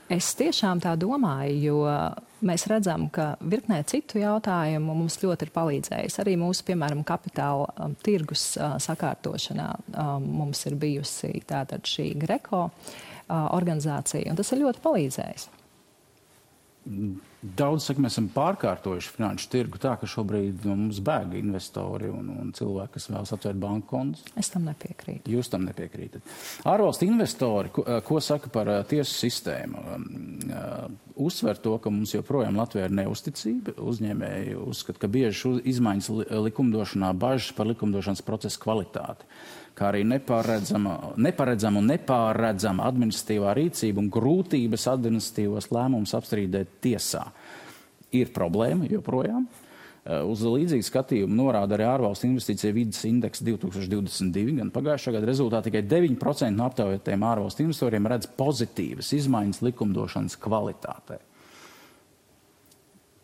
Es tiešām tā domāju, jo mēs redzam, ka virknē citu jautājumu mums ļoti ir palīdzējis. Arī mūsu, piemēram, kapitāla tirgus sakārtošanā mums ir bijusi tātad šī Greco organizācija, un tas ir ļoti palīdzējis. Daudz saka, mēs esam pārkārtojuši finanšu tirgu tā, ka šobrīd no mums bēg investori un cilvēki, kas vēlas atvērt banku kontus. Es tam nepiekrītu. Jūs tam nepiekrītat. Ārvalstu investori, ko saka par tiesu sistēmu? Uzsver to, ka mums joprojām Latvijā ir neusticība. Uzņēmēji uzskata, ka bieži izmaiņas likumdošanā bažas par likumdošanas procesu kvalitāti, kā arī neparedzama un nepārredzama administratīvā rīcība un grūtības administratīvos lēmumus apstrīdēt tiesā. Ir problēma joprojām. Uz līdzīgu skatījumu norāda arī ārvalstu investīcija vides indeks 2022, gan pagājušā gada rezultātā tikai 9% no aptaujātajiem ārvalstu investoriem redz pozitīvas izmaiņas likumdošanas kvalitātē.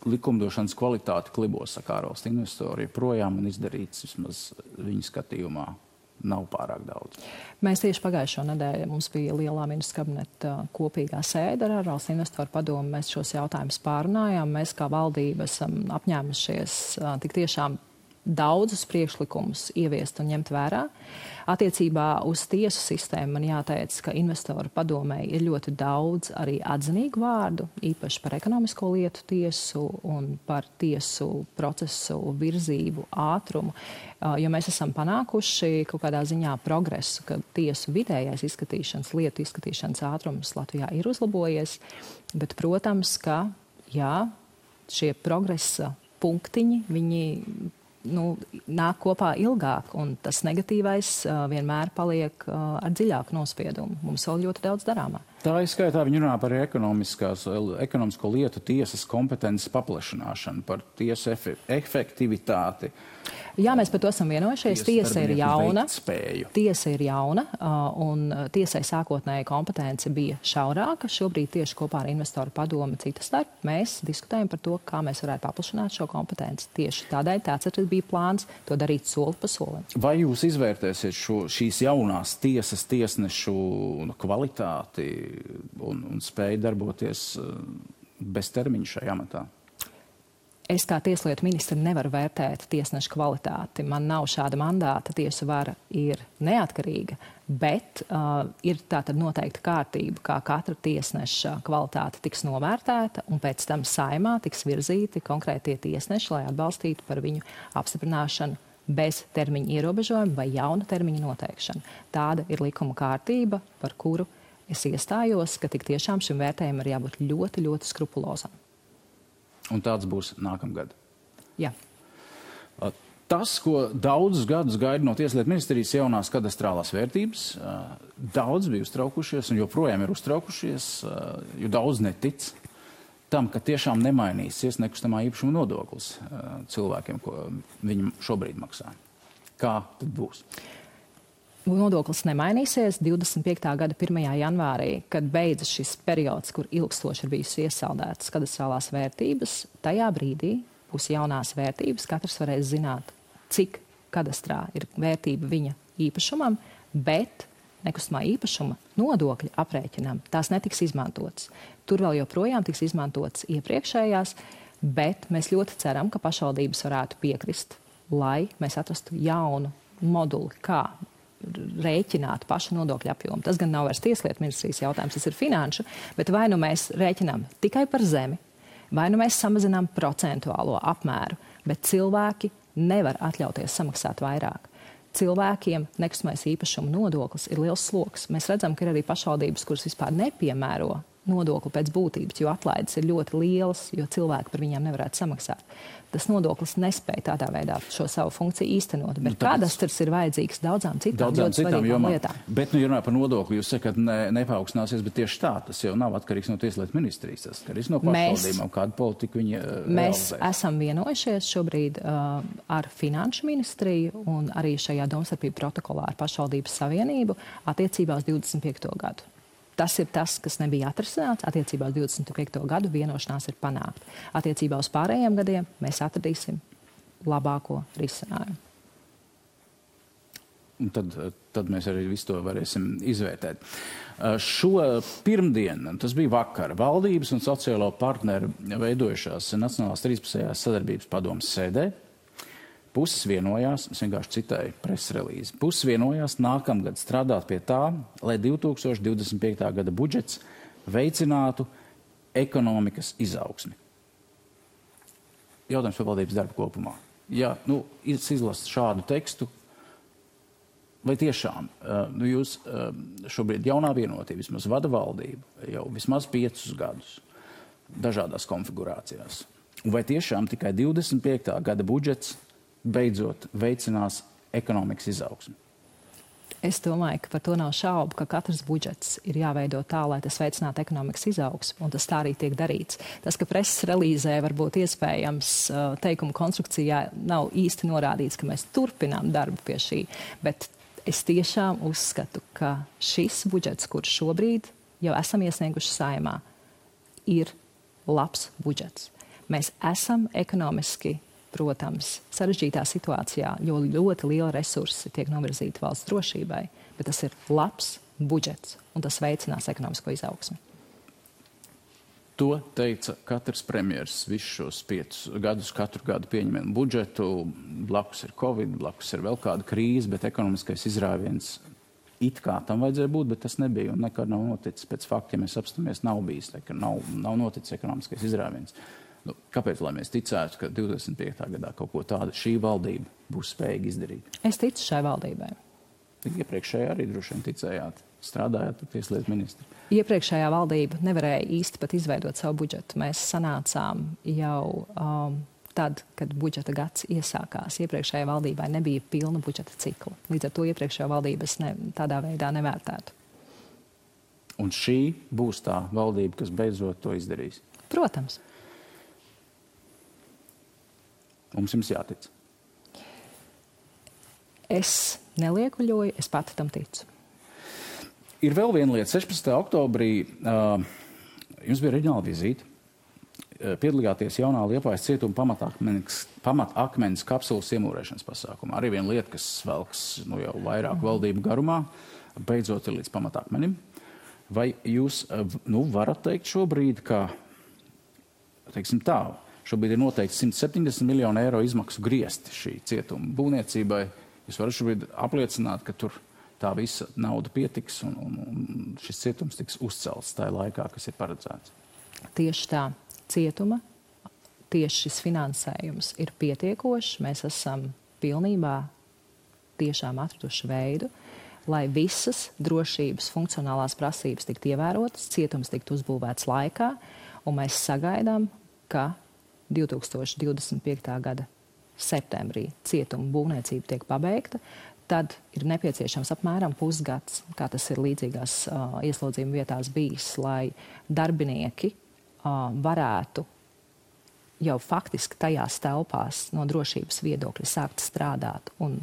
Likumdošanas kvalitāte klibos, saka ārvalstu investori, joprojām un izdarīts vismaz viņu skatījumā nav pārāk daudz. Mēs tieši pagājušo nedēļu mums bija lielā ministra kabineta kopīgā sēde ar ārvalstu investoru padomu. Mēs šos jautājumus pārunājām. Mēs kā valdība esam apņēmušies tik tiešām daudzus priekšlikumus ieviest un ņemt vērā. Attiecībā uz tiesu sistēmu man jāteic, ka investoru padomēji ir ļoti daudz arī atzinīgu vārdu, īpaši par ekonomisko lietu tiesu un par tiesu procesu virzību, ātrumu, jo mēs esam panākuši kaut kādā ziņā progresu, ka tiesu vidējais izskatīšanas, lietu izskatīšanas ātrums Latvijā ir uzlabojies, bet, protams, ka, jā, šie progresa punktiņi, viņi nāk kopā ilgāk, un tas negatīvais vienmēr paliek ar dziļāku nospiedumu. Mums vēl ļoti daudz darāmā. Tā izskaitā viņi runā par ekonomisko lietu tiesas kompetences paplašināšanu, par tiesu efektivitāti. Jā, mēs par to esam vienojušies. Tiesa ir jauna, un tiesai sākotnēji kompetence bija šaurāka. Šobrīd tieši kopā ar investoru padomu citas starp mēs diskutējam par to, kā mēs varētu paplašināt šo kompetenci. Tieši tādēļ tāds arī bija plāns to darīt soli pa solim. Vai jūs izvērtēsiet šīs jaunās tiesas tiesnešu kvalitāti un spēju darboties bez termiņa šajā amatā? Es kā tieslietu ministra nevaru vērtēt tiesnešu kvalitāti. Man nav šāda mandāta, tiesu vara ir neatkarīga, bet ir tātad noteikta kārtība, kā katra tiesneša kvalitāte tiks novērtēta, un pēc tam Saeimā tiks virzīti konkrētie tiesneši, lai atbalstītu par viņu apstiprināšanu bez termiņa ierobežojuma vai jauna termiņa noteikšana. Tāda ir likuma kārtība, par kuru es iestājos, ka tik tiešām šim vērtējumam ir jābūt ļoti, ļoti skrupulozam. Un tāds būs nākamgad. Jā. Tas, ko daudzus gadus gaida no Tieslietu ministrijas jaunās kadastrālās vērtības, daudz bija uztraukušies un joprojām ir uztraukušies, jo daudz netic tam, ka tiešām nemainīsies nekustamā īpašuma nodoklis cilvēkiem, ko viņi šobrīd maksā. Kā tad būs? Nodoklis nemainīsies 25. gada 1. janvārī, kad beidzas šis periods, kur ilgstoši ir bijusi iesaldētas kadastrālās vērtības. Tajā brīdī būs jaunās vērtības, katrs varēs zināt, cik kadastrā ir vērtība viņa īpašumam, bet nekustamā īpašuma nodokļa aprēķinam tās netiks izmantotas. Tur vēl joprojām tiks izmantotas iepriekšējās, bet mēs ļoti ceram, ka pašvaldības varētu piekrist, lai mēs atrastu jaunu moduli, kā rēķināt pašu nodokļu apjomu. Tas gan nav vairs Tieslietu ministrijas jautājums, tas ir finanšu, bet vai nu mēs rēķinām tikai par zemi, vai nu mēs samazinām procentuālo apmēru, bet cilvēki nevar atļauties samaksāt vairāk. Cilvēkiem nekustamais īpašuma nodoklis ir liels sloks. Mēs redzam, ka ir arī pašvaldības, kuras vispār nepiemēro nodokli pēc būtības, jo atlaides ir ļoti lielas, jo cilvēki par viņiem nevarētu samaksāt. Tas nodoklis nespēja tādā veidā šo savu funkciju īstenot, bet kadastrs ir vajadzīgs daudzām citām lietām. Bet, ja runā par nodokli, jūs sakat, nepaaugsināsies, bet tieši tā, tas jau nav atkarīgs no Tieslietu ministrijas, tas atkarīgs no pašvaldībām, kādu politiku viņi Mēs esam vienojušies šobrīd ar Finanšu ministriju un arī šajā domstarpību protokolā ar Pašvaldības savienību attiecībā uz 25. gadu. Tas ir tas, kas nebija atrisināts. Attiecībā uz 25. gadu vienošanās ir panākta. Attiecībā uz pārējiem gadiem mēs atradīsim labāko risinājumu. Un tad mēs arī visu to varēsim izvērtēt. Šo pirmdienu, tas bija vakar, valdības un sociālo partneru veidojušās Nacionālās 13. sadarbības padomes sēdē. Puses vienojās, es vienkārši citēju preses relīzi, puses vienojās nākamgad strādāt pie tā, lai 2025. gada budžets veicinātu ekonomikas izaugsmi. Jautājums par valdības darbu kopumā. Ja izlast šādu tekstu, vai tiešām jūs šobrīd jaunā vienotība vismaz vada valdību jau vismaz 5 gadus dažādās konfigurācijās? Un vai tiešām tikai 25. gada budžets beidzot veicinās ekonomikas izaugsmi? Es domāju, ka par to nav šaubu, ka katrs budžets ir jāveido tā, lai tas veicinātu ekonomikas izaugsmu, un tas tā arī tiek darīts. Tas, ka preses relīzē varbūt iespējams teikuma konstrukcijā nav īsti norādīts, ka mēs turpinām darbu pie šī, bet es tiešām uzskatu, ka šis budžets, kurš šobrīd jau esam iesnieguši Saeimā, ir labs budžets. Mēs esam ekonomiski, protams, sarežģītā situācijā, jo ļoti liela resursi tiek novirzīti valsts drošībai, bet tas ir labs budžets, un tas veicinās ekonomisko izaugsmi. To teica katrs premjers visus šos 5 gadus, katru gadu pieņemam budžetu, blakus ir Covid, blakus ir vēl kāda krīze, bet ekonomiskais izrāviens it kā tam vajadzēja būt, bet tas nebija un nekad nav noticis. Pēc fakta, ja mēs apstāmies, nav bijis, ka nav noticis ekonomiskais izrāviens. Kāpēc, lai mēs ticētu, ka 25. gadā kaut ko tādu šī valdība būs spējīga izdarīt? Es ticu šai valdībai. Iepriekšējā arī droši vien ticējāt, strādājāt ar Tieslietu ministru. Iepriekšējā valdība nevarēja īsti pat izveidot savu budžetu. Mēs sanācām jau tad, kad budžeta gads iesākās. Iepriekšējā valdībai nebija pilna budžeta cikla. Līdz ar to iepriekšējā valdības tādā veidā nevērtētu. Un šī būs tā valdība, kas beidzot to izdarīs? Protams. Mums jums jātic. Es neliekuļoju, es pati tam ticu. Ir vēl viena lieta. 16. oktobrī jums bija reģionāla vizīte. Piedalījāties jaunā Liepājas cietuma pamatakmeņas kapsulas iemūrēšanas pasākumā. Arī viena lieta, kas velks jau vairāk valdību garumā, beidzot ir līdz pamatakmenim. Vai jūs varat teikt šobrīd, ka, teiksim tā, Šobrīd ir noteikti 170 miljonu eiro izmaksu griezti šī cietuma būvniecībai. Jūs varat šobrīd apliecināt, ka tur tā visa nauda pietiks un šis cietums tiks uzcelts tajā laikā, kas ir paredzēts. Tieši tā, cietuma, tieši šis finansējums ir pietiekošs. Mēs esam pilnībā tiešām atraduši veidu, lai visas drošības funkcionālās prasības tiktu ievērotas, cietums tiktu uzbūvēts laikā, un mēs sagaidām, ka 2025. gada septembrī cietuma būvniecība tiek pabeigta, tad ir nepieciešams apmēram pusgads, kā tas ir līdzīgās ieslodzījuma vietās bijis, lai darbinieki varētu jau faktiski tajās telpās no drošības viedokļa sākt strādāt un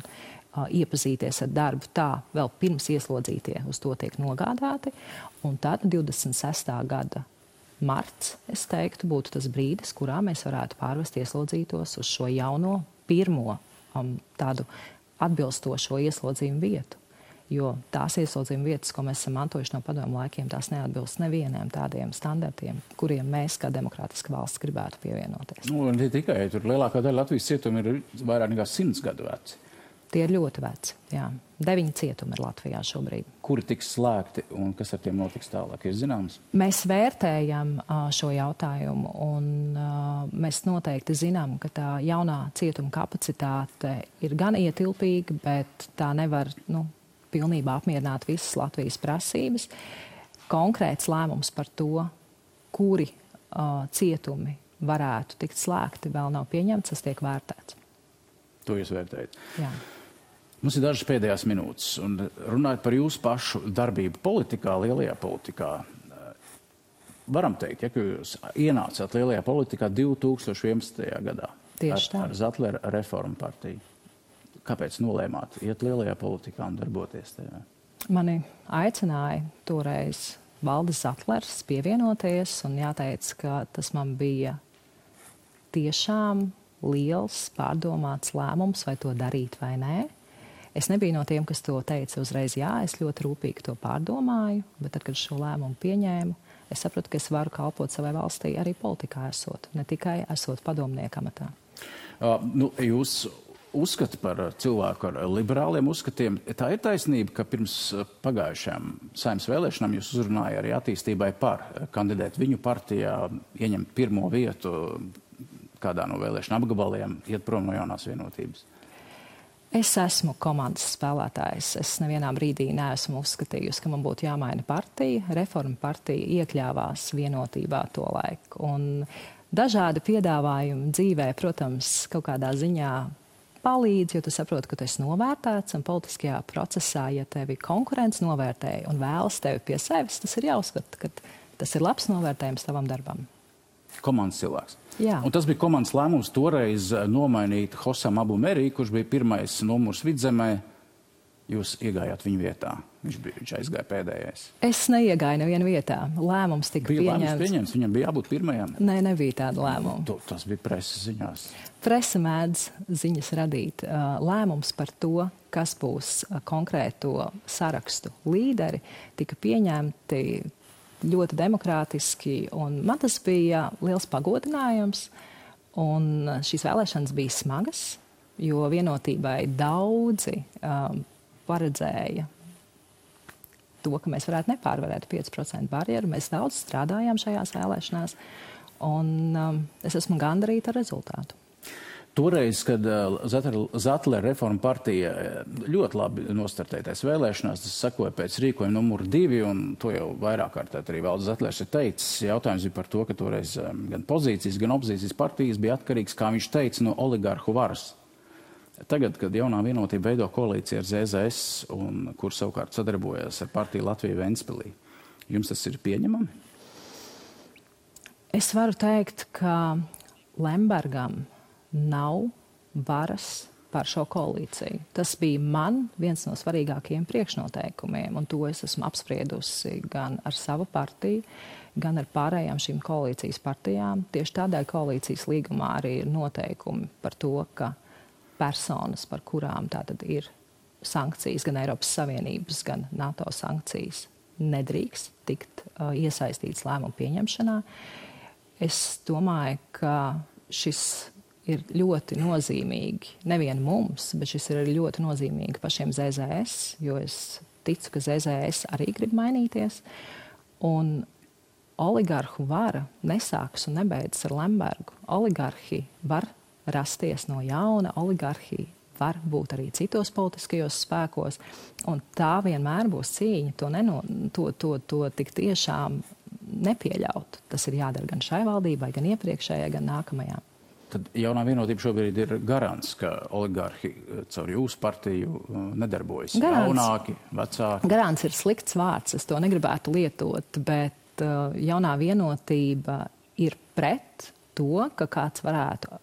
iepazīties ar darbu tā, vēl pirms ieslodzītie uz to tiek nogādāti. Un tad 26. gada marts, es teiktu, būtu tas brīdis, kurā mēs varētu pārvest ieslodzītos uz šo jauno pirmo tādu atbilstošo ieslodzījumu vietu. Jo tās ieslodzījuma vietas, ko mēs esam mantojuši no padomu laikiem, tās neatbilst nevieniem tādiem standartiem, kuriem mēs kā demokrātiska valsts gribētu pievienoties. Nu, ne tikai, tur lielākā daļa Latvijas cietumi ir vairāk nekā 100 gadu veci. Tie ir ļoti veci, jā. 9 cietumi ir Latvijā šobrīd. Kuri tiks slēgti un kas ar tiem notiks tālāk, ir zināms? Mēs vērtējam šo jautājumu un mēs noteikti zinām, ka tā jaunā cietuma kapacitāte ir gan ietilpīga, bet tā nevar, pilnībā apmierināt visas Latvijas prasības. Konkrēts lēmums par to, kuri cietumi varētu tikt slēgti, vēl nav pieņemts, tas tiek vērtēts. To jūs vērtējat? Jā. Mums ir dažas pēdējās minūtes, un runājot par jūsu pašu darbību politikā, lielajā politikā, varam teikt, ka jūs ienācāt lielajā politikā 2011. gadā. Tieši tā. Ar Zatlera reformu partiju. Kāpēc nolēmāt iet lielajā politikā un darboties tajā? Mani aicināja toreiz Valdis Zatlers pievienoties, un jāteic, ka tas man bija tiešām liels, pārdomāts lēmums, vai to darīt vai nē. Es nebiju no tiem, kas to teica uzreiz jā, es ļoti rūpīgi to pārdomāju, bet tad, kad šo lēmumu pieņēmu, es sapratu, ka es varu kalpot savai valstī arī politikā esot, ne tikai esot padomnieka amatā. Jūs uzskati par cilvēku ar liberāliem uzskatiem. Tā ir taisnība, ka pirms pagājušajām Saeimas vēlēšanām jūs uzrunāja arī attīstībai par kandidēt viņu partijā, ieņemt pirmo vietu kādā no vēlēšana apgabaliem, iet prom no jaunās vienotības? Es esmu komandas spēlētājs. Es nevienā brīdī neesmu uzskatījusi, ka man būtu jāmaina partija. Reforma partija iekļāvās vienotībā to laiku. Un dažādi piedāvājumi dzīvē, protams, kaut kādā ziņā palīdz, jo tu saproti, ka tu esi novērtēts un politiskajā procesā, ja tevi konkurents novērtēja un vēlas tevi pie sevis, tas ir jāuzskata, ka tas ir labs novērtējums tavam darbam. Komandas cilvēks. Jā. Un tas bija komandas lēmums toreiz nomainīt Hosam Abu Merī, kurš bija pirmais numurs Vidzemē. Jūs iegājāt viņa vietā. Viņš aizgāja pēdējais. Es neiegāju nevienu vietā. Lēmums tika pieņemts. Viņam bija jābūt pirmajam. Nē, nebija tāda lēmuma. Tas bija preses ziņās. Presa mēdz ziņas radīt. Lēmums par to, kas būs konkrēto sarakstu līderi, tika pieņemti ļoti demokrātiski, un man tas bija liels pagodinājums, un šīs vēlēšanas bija smagas, jo vienotībai daudzi paredzēja to, ka mēs varētu nepārvarēt 5% barjeru. Mēs daudz strādājām šajās vēlēšanās, un es esmu gandarīta ar rezultātu. Toreiz, kad Zatlera reforma partija ļoti labi nostartētais vēlēšanās, tas sekoja pēc rīkojuma numuru 2, un to jau vairāk kārtēt arī Valdis Zatlers ir teicis. Jautājums bija par to, ka toreiz gan pozīcijas, gan opozīcijas partijas bija atkarīgs, kā viņš teica, no oligarhu varas. Tagad, kad jaunā vienotība veido koalīciju ar ZZS, un kur savukārt sadarbojas ar partiju Latviju Ventspilī, jums tas ir pieņemami? Es varu teikt, ka Lembergam nav varas par šo koalīciju. Tas bija man viens no svarīgākajiem priekšnoteikumiem, un to es esmu apspriedusi gan ar savu partiju, gan ar pārējām šīm koalīcijas partijām. Tieši tādēļ koalīcijas līgumā arī ir noteikumi par to, ka personas, par kurām tātad ir sankcijas, gan Eiropas Savienības, gan NATO sankcijas, nedrīkst tikt iesaistīts lēmumu pieņemšanā. Es domāju, ka šis ir ļoti nozīmīgi, nevien mums, bet šis ir ļoti nozīmīgi pašiem ZZS, jo es ticu, ka ZZS arī grib mainīties. Un oligarhu vara nesāks un nebeidzas ar Lembergu. Oligarhi var rasties no jauna, oligarhi var būt arī citos politiskajos spēkos, un tā vienmēr būs cīņa, to tik tiešām nepieļaut. Tas ir jādara gan šai valdībai, gan iepriekšējai, gan nākamajām. Tad jaunā vienotība šobrīd ir garants, ka oligarhi caur jūsu partiju nedarbojas. Jaunāki, vecāki. Garants ir slikts vārds, es to negribētu lietot, bet jaunā vienotība ir pret to, ka kāds varētu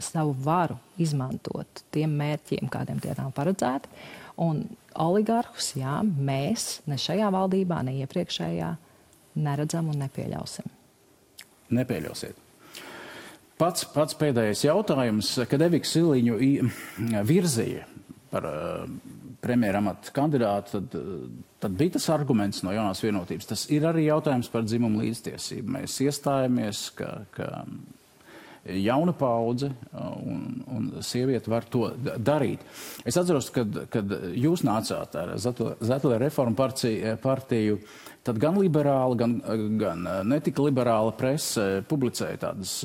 savu varu izmantot tiem mērķiem, kādiem tie nav paredzēti. Un oligarhus, jā, mēs ne šajā valdībā, ne iepriekšējā neredzam un nepieļausim. Nepieļausiet. Pats pēdējais jautājums, kad Eviku Siliņu virzīja par premjeramata kandidātu, tad bija tas arguments no jaunās vienotības. Tas ir arī jautājums par dzimumu līdztiesību. Mēs iestājamies, ka jauna paudze un sieviete var to darīt. Es atceros, kad jūs nācāt ar Zetlera reformu partiju, tad gan liberāla, gan netika liberāla prese publicēja tādas,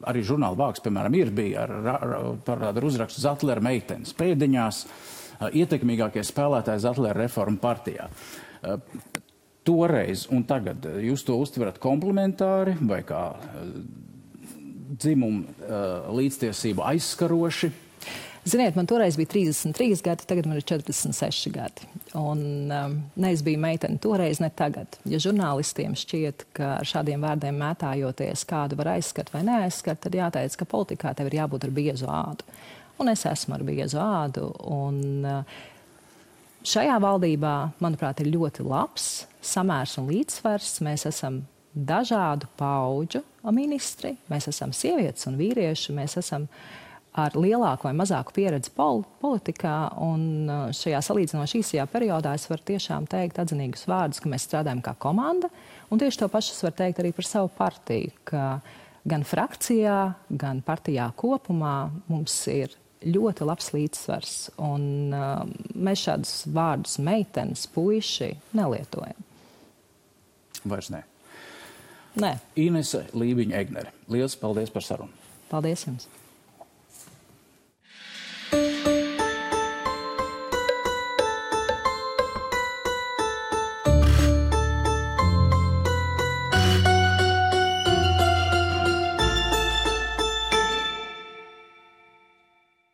arī žurnāla vāks, piemēram, bija par uzrakstu Zetlera meitenes pēdiņās, ietekmīgākie spēlētāji Zetlera reformu partijā. Toreiz un tagad jūs to uztverat komplementāri vai kā dzimumu līdztiesību aizskaroši? Ziniet, man toreiz bija 33 gadi, tagad man ir 46 gadi. Un ne es biju meitene toreiz, ne tagad. Ja žurnālistiem šķiet, ka ar šādiem vārdiem mētājoties kādu var aizskart vai neaizskart, tad jāteic, ka politikā tev ir jābūt ar biezu ādu. Un es esmu ar biezu ādu. Un šajā valdībā, manuprāt, ir ļoti labs samērs un līdzsvars. Mēs esam dažādu paudžu ministri, mēs esam sievietes un vīrieši, mēs esam ar lielāku vai mazāku pieredzi politikā, un šajā salīdzinoši īsajā periodā es varu tiešām teikt atzinīgus vārdus, ka mēs strādājam kā komanda, un tieši to pašu es varu teikt arī par savu partiju, ka gan frakcijā, gan partijā kopumā mums ir ļoti labs līdzsvars, un mēs šādus vārdus meitenes, puiši nelietojam. Vairs ne. Nē. Inese Lībiņa Egnere. Liels paldies par sarunu. Paldies jums.